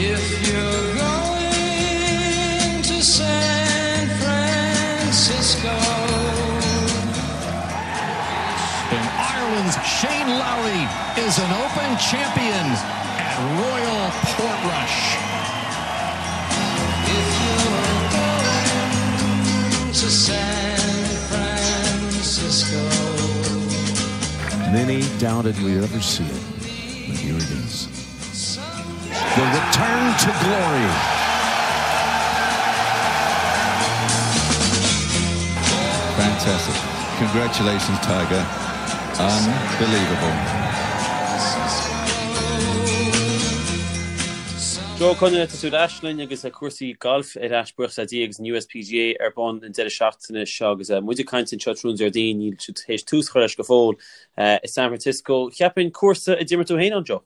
If you're going to San Francisco. And Ireland's Shane Lowry is an Open champion at Royal Portrush. If you're going to San Francisco. Many doubted we'd ever see it, but here it is. The return to glory. Fantastic. Congratulations, Tiger. Unbelievable. Joe Conaire, tá tú ar ais linn agus cúrsaí gailf ar ais buíochas le Dia agus an USPGA ar bun an deireadh seachtaine seo agus muid ag caint anseo tráthnóna Déardaoin, níl siad théis tús a chur leis go fóill i San Francisco. Cheapfainn cúrsa a d'imir tú féin ann, Joe?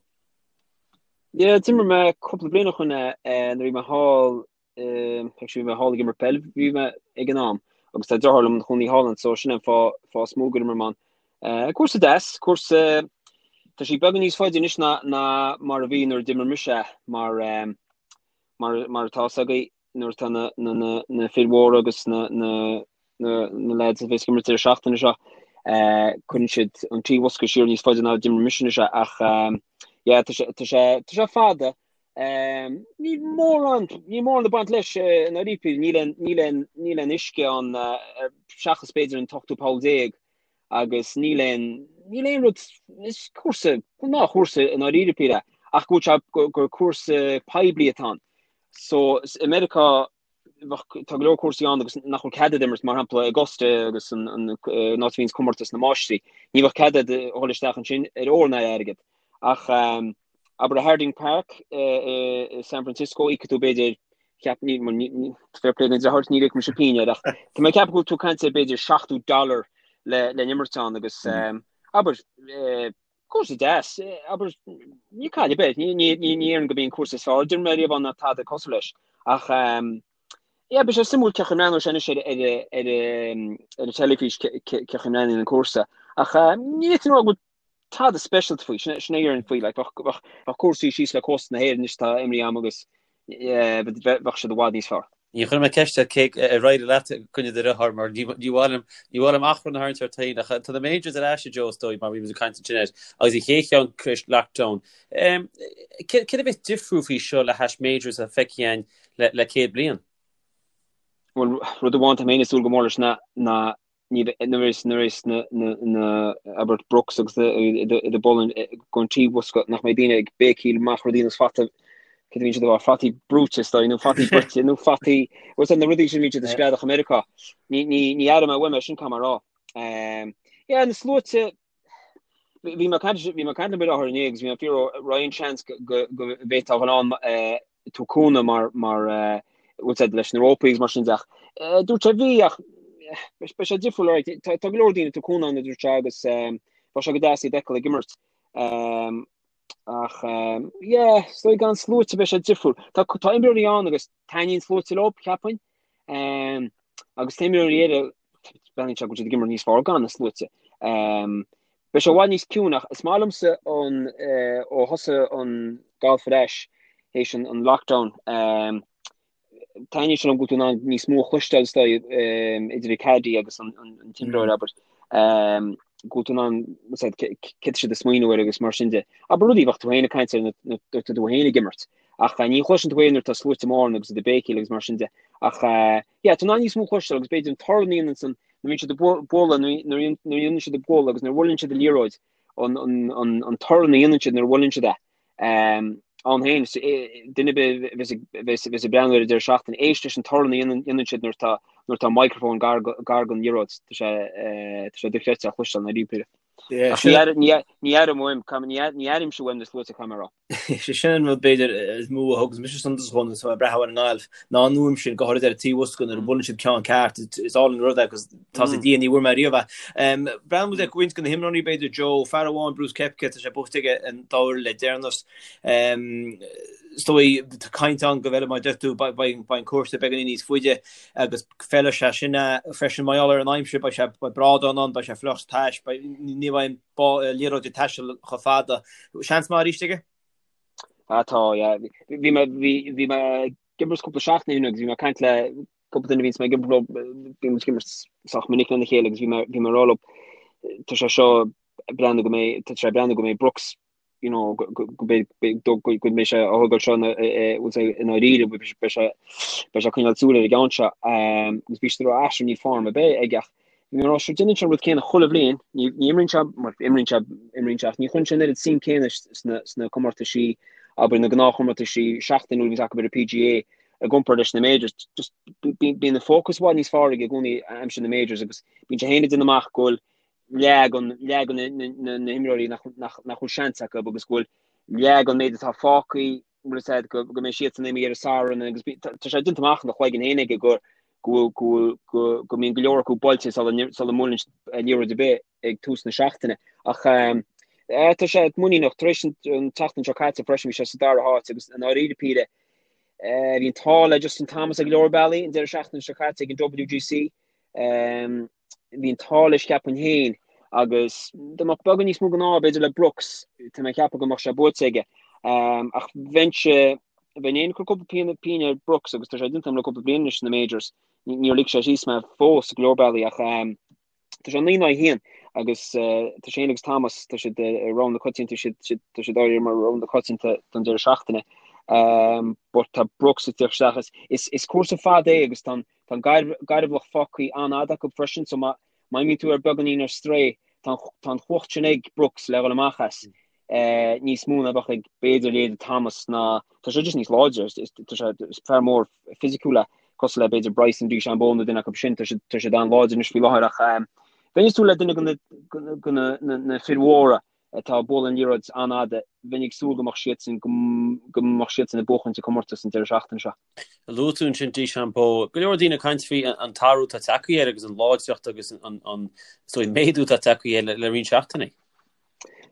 Yeah, d'imir mé cúpla bliain ó shoin nuair a bhí mé thall, actually bhí mé thall ag imirt peil, bhí mé ag an am, agus tá deartháir liom ina chónaí thall ann, so sin an fáth fáth is mó gur imir mé ann. Cúrsa deas, cúrsa, tá sé beagán níos faide anois ná ná mar a bhí nuair a d'imir mise é, mar mar mar atá fhios agaibh, nuair atá na na na na fir mhóra agus na na na na lads a bheas ag imirt deireadh seachtaine seo, cuireann siad an trí bhosca siar níos faide ná d'imir mise anois é ach yeah tá sé tá sé tá sé fada. Níl mórán níl mórán ag baint leis i ndáiríre, níl aon níl aon níl aon uisce ann seachas b'fhéidir an t-ochtú poll déag agus níl aon níl aon rud is cúrsa gnáthchúrsa i ndáiríre píre ach go bhfuil sé gur cúrsa poiblí atá ann. So i Meiriceá bheadh, tá go leor cúrsaí ann agus nach bhfuil cead agat imirt, mar shampla Augusta agus an an an áit a bhíonns comórtas na máistrí. Ní bheadh cead agat a dhul isteach ansin ar ór ná ar airgead. Ach abair i Harding Park i San Francisco, íocfaidh tú b'fhéidir, cheap, ní, ní, ní, fair play don deartháir, níor íoc mise pingin air ach tá mé ag ceapadh go bhfuil tú ag caint ar b'fhéidir 70 dollar le le n-imirt ann agus abair Cúrsa deas, abair, ní caill ar bith, ní déarfainn gurb é an cúrsa is fearr a d'imir mé riamh ann ná tada cosúil leis. Ach, yeah, beidh sé suimiúil cén chaoi a mbreathnóidh sé anois ar ar ar an teilifís cén chaoi a mbreathnaíonn an cúrsa. Ach ní fhéadfainn a rá go bhfuil tada speisialta faoi, sin sin a déarfainn faoi, like, bheadh bheadh cúrsaí síos le cósta na hÉireann anois atá imeartha agam agus bheadh siad i bhfad níos fearr. Ní chuirfidh mé ceist air cé ar éirigh leat i gcoinne do dhearthár mar ní mhaith liom ní mhaith liom achrann a tharraingt ort féin ach tá na Majors ar ais a Joe is dóigh mar bhí muid ag caint ansin air agus an chéad cheann tar éis lockdown. Céard a bheas difriúil faoi seo le hais Majors a feicthe againn le le 100 bliain? Bhuel rud amháin tá mé féin ag súil go mór leis ná ná ní bheidh, nuair is, nuair is na, na, na, abair Brooks agus na, iad ag bualadh don trí bhosca, nach mbeidh daoine ag béicíl amach rudaí ar nós fata, céard a bhíonn siad a rá, fataí brúite is dóigh, nó fataí bruite, nó fataí, bhfuil na rudaí sin a bhíonn siad ag screadach i Meiriceá. Ní, ní, ní aireoidh mé uaim é sin, caithfidh mé a rá. Yeah, na sluaite, bhí mé ag caint, bhí mé ag caint le mo dheartháir inné agus bhí mé ag fiafraí an raibh aon seans go, go, go bhféadfá a dhul ann, tabhairt cúnamh mar mar bhfuil a fhios agat leis na rópaí agus mar sin de ach dúirt sé bhí ach beidh sé difriúil alright tá go leor daoine ag tabhairt cúnamh ann a dúirt sé agus bheadh sé go deas iad a fheiceáil ag imirt ach yeah is dóigh gan sluaite beidh sé difriúil tá tá imreoirí ann agus taitníonn sluaite leo cheapfainn agus tá imreoirí eile breathnaíonn sé go bhfuil siad ag imirt níos fearr gan na sluaite. Beidh sé i bhfad níos ciúine ach is maith liomsa an ó thosaigh an galf ar ais théis an lockdown taitníonn sé liom go bhfuil tú in ann níos mó a chloisteáil is dóigh idir an caddy agus an t-imreoir abair go bhfuil tú in ann céard tá siad ag smaoineamh air agus mar sin de. Abair rudaí bheadh tú féin ag caint air nuair atá tú féin ag imirt ach ní chloiseann tú é nuair atá sluaite móra ann agus iad ag béicíl agus mar sin de ach yeah tá tú in ann níos mó a chloisteáil agus b'fhéidir an torann a dhéanann san nuair a bhíonn siad ag bualadh, nuair a dhéanann siad ag bualadh agus nuair a bhuaileann siad an liathróid, an torann a dhéanann siad nuair a bhuaileann siad é ann féin, duine ar bith a bheas ag breathnú ar an deireadh seachtaine, éist leis an torann a dhéanann siad nuair atá nuair atá microphone gar don liathróid, tá sé tá sé dochreidte a chloisteáil i ndáiríre. Ach ní airím uaim, ní airímse uaim na sluaite caithfidh mé a rá. Sé sin an rud b'fhéidir is mó a thugas mise suntas dhó nuair atá mé ag breathnú ar an ngalf, ná an fhuaim sin, go háirid ar an trí bhosca nuair a bhuaileann siad ceann ceart, is álainn an rud é agus tá a fhios ag Dia ní bhfuair mé riamh é. Breathnóidh muid ar roinnt de na himreoirí b'fhéidir, Joe, fear amháin, Brooks Koepka, tá sé buaite aige an dá uair le deireanas. Is dóigh, tá caint ann go bhfeilfidh, mar a deir tú, beidh an cúrsa beagáinín níos faide agus feilfidh sé sin freisin mar gheall ar an aimsir, beidh sé, beidh brádán ann, beidh sé fliuch tais, beidh, ní bheidh an liathróid ag taisteal chomh fada. Seans maith arís aige? Ah tá, yeah. Bhí mé, bhí, bhí mé ag imirt cúpla seachtain ó shin agus bhí mé ag caint le cúpla duine a bhíonns mé ag imirt leo, bíonn muid ag imirt sách minic lena chéile agus bhí mé, bhí mé ag rá leo, tá sé seo ag breathnú go mbeidh, tá sé ag breathnú go mbeidh Brooks, you know, go, go, go mbeidh, go, go, go mbeidh sé á thógáil seo ina, bhfuil sé i ndáiríre, beidh sé, beidh sé ag coinneáil súil ar an gceann seo. Agus bhí siad ag rá, ah, sure, níl form ar bith aige ach bhí mé ag rá, sure, déanann sé an rud céanna chuile bhliain, ní, ní imríonn sé, mar imríonn sé, imríonn sé ach ní chuireann sé an oiread suim céanna sna, sna comórtaisí, abair na gnáthchomórtaisí seachtainiúil a bhíonns acu ar an PGA i gcomparáid leis na majors. Just bíonn an fócas i bhfad níos fearr aige i gcónaí aimsir na majors agus bíonn sé féin ag déanamh amach go bhfuil leath den, leath de na, na, na himreoirí nach, nach, nach bhfuil seans acu agus go bhfuil leath den méid atá fágtha bhfuil a fhios agat, go, go mbeidh siadsan imithe ar an Satharn agus bí, tá, tá sé déanta amach ina chloigeann féin aige go, go, go, go, go mbíonn go leor acu buailte sula, sula mbuaileann siad liathróid ar bith ag tús na seachtaine. Ach eh, tá sé muiníneach tar éis an, an tseachtain seo caite freisin bhí sé sa dara háit agus i ndáiríre píre eh, bhí an t-ádh le Justin Thomas ag go leor bealaí an deireadh seachtaine seo caite ag an WGC. Um, bhí an t-ádh leis cheapfainn féin agus dá mbeadh beagán níos mó den ádh b'fhéidir le Brooks, tá mé ag ceapadh go mbeadh sé buaite aige. Ach bheinnse, bheinn féin ag cur cúpla pingin, pingin ar Brooks agus tá sé déanta agam le cúpla bliain anois sna Majors. Níor lig sé síos mé fós go leor bealaí ach tá sé 9 in aghaidh 1 agus tá sé féin agus Thomas, tá siad i rogha na coitianta, tá siad áirithe mar rogha na coitianta don deireadh seachtaine. But tá Brooks ag tíocht isteach. Is cúrsa fada é agus tá an Tá an gairbhealach fágtha an-fhada acu freisin so má imíonn tú ar beagáinín ar strae, tá an chumhacht sin ag Brooks le dhul amach as níos mó ná bheadh ag b'fhéidir leithéid Thomas ná tá sé just níos láidre, tá sé is fear mór fisiciúil é cosúil le b'fhéidir Bryson DeChambeau nó duine acu sin, tá siad tá siad an-láidir anois faoi láthair ach bheinn ag súil le duine de na fir mhóra atá ag bualadh an liathróid an-fhada, bheinn ag súil go mbeadh siadsan go mbeadh siadsan ag buachaint an comórtas an deireadh seachtaine seo. Luaigh tú ansin DeChambeau, go leor daoine ag caint faoi an t-athrú atá tagtha air agus an láidreacht agus an an méadú atá tagtha air le roinnt seachtainí.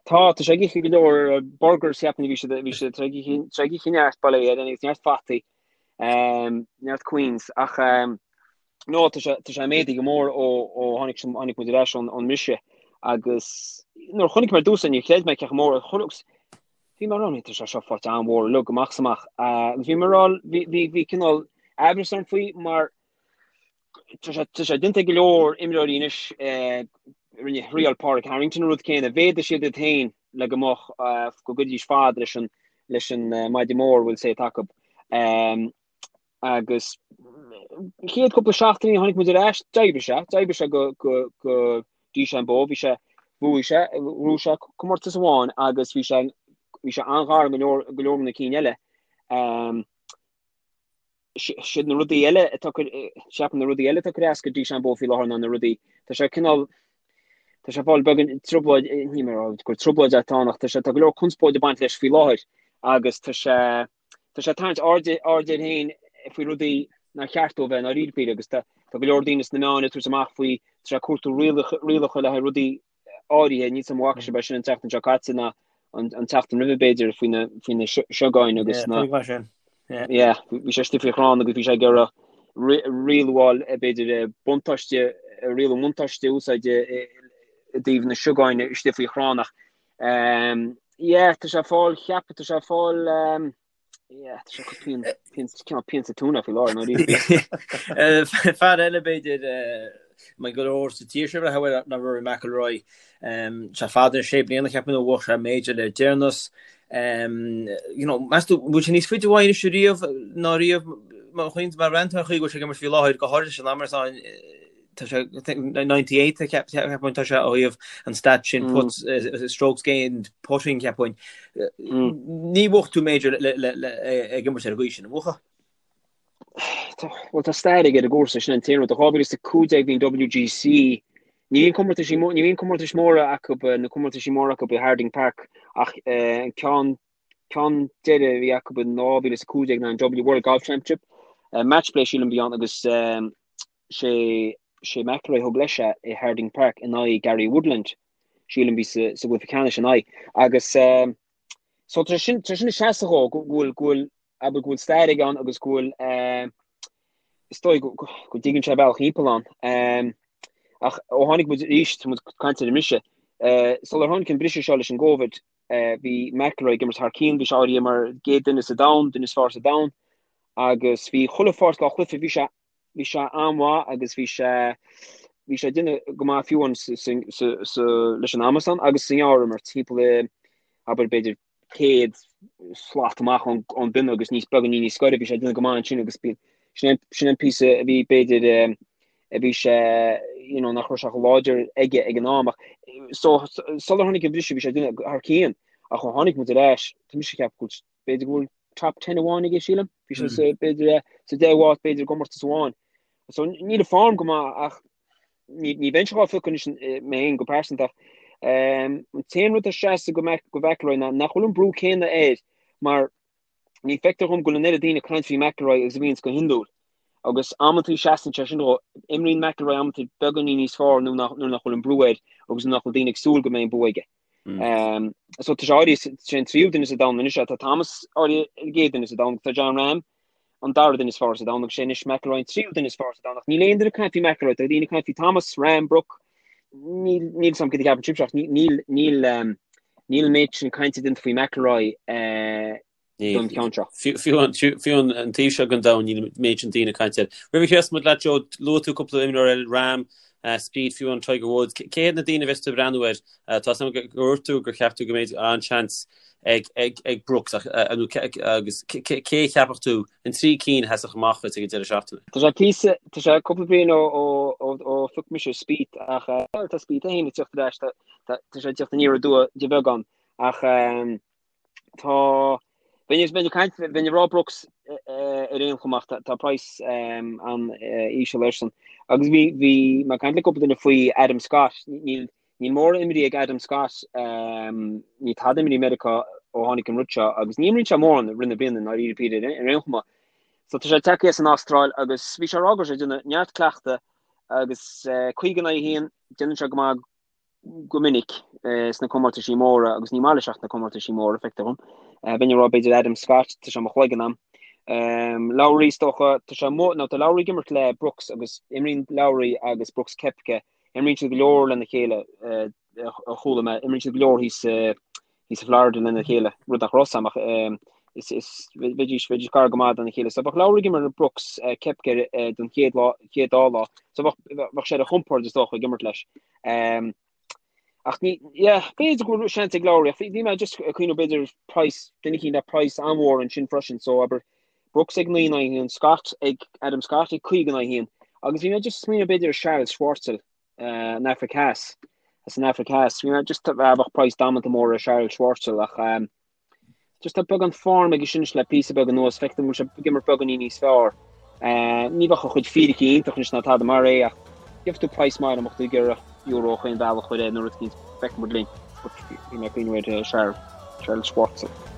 Tá, tá sé ag ithe go leor burgers cheapfainn bhí siad bhí siad ag ithe neart bail ó Dhia air agus neart fataí, neart Queens ach No, tá sé, tá sé méadaithe go mór ó, ó tháinig, tháinig muid ar ais ón, ón mbriseadh agus nuair a chonaic mé ar dtús é níor chreid mé cé chomh mór, agus bhí mé ag rá, tá sé seo faighte an-mhór uilig amach is amach. Agus bhí mé ag rá, bhí, bhí, bhí cineál aimhreas orm faoi mar tá sé, tá sé déanta ag go leor imreoirí anois, rinne, thriail Pádraig Harrington an rud céanna, mhéadaigh siad iad féin le go mbeadh, go gcuirfidís fad leis an, leis an maide mór, bhfuil a fhios agat. Agus chéad cúpla seachtainí tháinig muid ar ais, d'oibrigh sé, d'oibrigh sé go, go, go DeChambeau, bhí sé, bhuaigh sé, bhuaigh sé comórtas amháin agus bhí sé, bhí sé an-ghar go leor, go leor na cinn eile. Um, siad na rudaí eile atá ceapaim na rudaí eile atá ag cur as go DeChambeau faoi láthair ná na rudaí, tá sé cineál, tá sé ag fáil beagán trioblóid, ní mé gur trioblóid atá ann ach tá sé, tá go leor conspóid ag baint leis faoi láthair agus tá sé, Tá sé ag tarraingt aird aird air féin faoi rudaí nár cheart dó bheith i ndáiríre píre agus tá go leor daoine sna meáin ag tabhairt amach faoi tá sé ag cuartú rialacha rialacha le haghaidh rudaí áirithe níl 's a'm an bhfaca sibh é sin an tseachtain seo caite ná an an tseachtain roimhe b'fhéidir faoi na faoi na siogáin agus na yeah bhí sé istigh faoi chrann agus bhí sé ag iarraidh rialú a fháil b'fhéidir buntáiste rialú buntáiste a úsáid i dtaobh na siogáin istigh faoi chrann ach Um, yeah, tá sé ag fáil, cheap, tá sé ag fáil, um, yeah, tá sé pian, pian, cineál pian sa tóin faoi láthair, nó rí. Fear eile b'fhéidir, mar go leor sa tír seo a bhfuil ná Rory McIlroy, um, sé fada sé bliana cheapfainn ó bhuaigh sé major le deireanas. Um, you know, meas tú, bhfuil sé níos faide uaidh anois riamh ná riamh mar chuin mar rent ar chaoi go bhfuil sé ag imirt faoi láthair go háirithe san am atá tá sé 98 cheapfainn tá sé ó thaobh an stat sin putts strokes gained putting cheapfainn. Ní bhuafadh tú major ag imirt ar an gcaoi sin, an mbuafá? Bhuel tá stair aige ar an gcúrsa sin an t-aon rud. 2015 bhí an WGC ní bhíonn comórtaisí ní bhíonn comórtais móra acu na comórtaisí móra acu i Harding Park ach an ceann ceann deiridh a bhí acu in 2015 ná an W World Golf Championship match play sílim a bhí ann agus sé sé McIlroy thug leis é i Harding Park in aghaidh Gary Woodland, sílim bhí sa sa gcluiche ceannais in aghaidh. Agus so tá sin tá sin ag seasamh dhó go bhfuil go bhfuil abair go bhfuil stair aige ann agus go bhfuil is dóigh go go go dtuigeann sé a bhealach thimpeall ann. Ach ó tháinig muid arís, tá muid ag caint ar an mbriseadh, sular tháinig an briseadh seo leis an gCovid, Bhí McIlroy ag imirt thar cionn, bhí sé áirithe mar an gcéad duine sa domhan, duine is fearr sa domhan agus bhí chuile pháirt dá chluiche, bhí sé bhí sé an-mhaith agus bhí sé bhí sé ag déanamh go maith fiú amháin sa leis an amasán agus sa ngearrimirt timpeall i abair b'fhéidir 100 slat amach ón bpionna agus níos beagáinín níos gaire bhí sé ag déanamh go maith ansin agus bhí sin an sin an píosa a bhí b'fhéidir a bhí sé you know nach raibh sé chomh láidir aige ag an am ach so sular tháinig an briseadh bhí sé ag déanamh thar cionn ach ó tháinig muid ar ais tá mise ag ceapadh go bhfuil b'fhéidir go bhfuil top 10 amháin aige sílim. Bhí sé sa b'fhéidir sa 10 áit b'fhéidir i gcomórtas amháin. So níl a form go maith ach ní ní bheinnse dhá phiocadh anois mé féin go pearsanta ach an t-aon rud a seasamh go go McIlroy ná nach bhfuil an brú céanna air mar ní feictear dhom go bhfuil an oiread daoine ag caint faoi McIlroy agus a bhíonns go hiondúil. Agus amantaí seasann sé sin dhó, imríonn McIlroy amantaí beagáinín níos fearr nuair nach nuair nach bhfuil an brú air agus nuair nach bhfuil daoine ag súil go mbeidh an bua aige. So tá sé áirithe sé an tríú duine sa domhan anois tá Thomas áirithe an gcéad duine sa domhan tá Jon Rahm an dara duine is fearr sa domhan agus sé anois McIlroy an tríú duine is fearr sa domhan ach níl aon duine ag caint faoi McIlroy tá daoine ag caint faoi Thomas, Rahm, Brooks níl níl 'fhios a'm cad a cheapann sibhse ach níl níl níl an méid sin cainte déanta faoi McIlroy don cheann seo. Fiú an taobh seo den domhan níl an méid sin daoine ag caint air. Roimh a chríochnós muid leat Joe, luaigh tú cúpla imreoir eile, Rahm, Spieth, fiú an Tiger Woods. Cé hiad na daoine a bheas tú ag breathnú air? Tá 'fhios a'm gur dhúirt tú gur cheap tú go mbeidh an-seans ag Brooks agus cé a cheapfadh tú an trí cinn a sheasfadh amach dhuit ag an deireadh seachtaine? Tá sé píosa, tá sé cúpla bliain ó phioc mise Spieth ach tá Spieth é féin ag teacht ar ais, tá sé ag teacht aniar aduaidh de bheagán ach Tá, bheinn ag caint, bheinn ag rá Brooks ar aon chuma ach tá praghas an-íseal airsean. Agus bhí, bhí mé ag caint le cúpla duine faoi Adam Scott, níl, níl mórán imrithe ag Adam Scott, níl tada imrithe i Meiriceá ó tháinig an rud seo agus ní imríonn sé mórán i rith na bliana i ndáiríre píre ar aon chuma. So tá sé tagtha as an Astráil agus bhí sé ag rá go raibh sé ag déanamh neart cleachta agus 50 in aghaidh 1, déanann sé go maith go minic sna comórtaisí móra agus ní maith leis ach na comórtaisí móra, feictear dhom. Bheinn ag rá b'fhéidir Adam Scott, tá sé i mo chloigeann a'm. Lowry is dócha, tá sé amuigh, nó tá Lowry ag imirt le Brooks agus imríonn Lowry agus Brooks Koepka, imríonn siad go leor lena chéile, a chuala mé, imríonn siad go leor thíos thíos i Florida lena chéile, rud nach raibh 'fhios a'm ach is is bheidís bheidís gar go maith dona chéile. So bheadh Lowry ag imirt le Brooks Koepka don chéad lá chéad dá lá. So bheadh bheadh sé ar a chompord is dócha ag imirt leis. Um, ach ní yeah, b'fhéidir go bhfuil seans ag Lowry ach bhí mé just ag cuimhneamh b'fhéidir price duine eicínt le price an-mhór ansin freisin so abair Brooks ag 9 in aghaidh 1, Scott ag Adam Scott ag 5 in aghaidh 1 agus bhí mé just smaoineamh b'fhéidir Charles Schwartzel an Afraic Theas, as an Afraic Theas. Bhí mé just bheadh praghas damanta mór ar Charles Schwartzel ach um, just tá beagán form aige sin le píosa beag anuas, feictear go bhfuil sé ag imirt beagáinín níos fearr. Uh, ní bheadh a chuid fíricí iontach anois ná tada mar é ach gheobhaidh tú praghas maith dá mbeadh tú ag iarraidh euro chaon bhealach chuir é nó rud eicínt feicfidh muid linn. But bhí mé ag cuimhneamh ar Charles, Charles Schwartzel.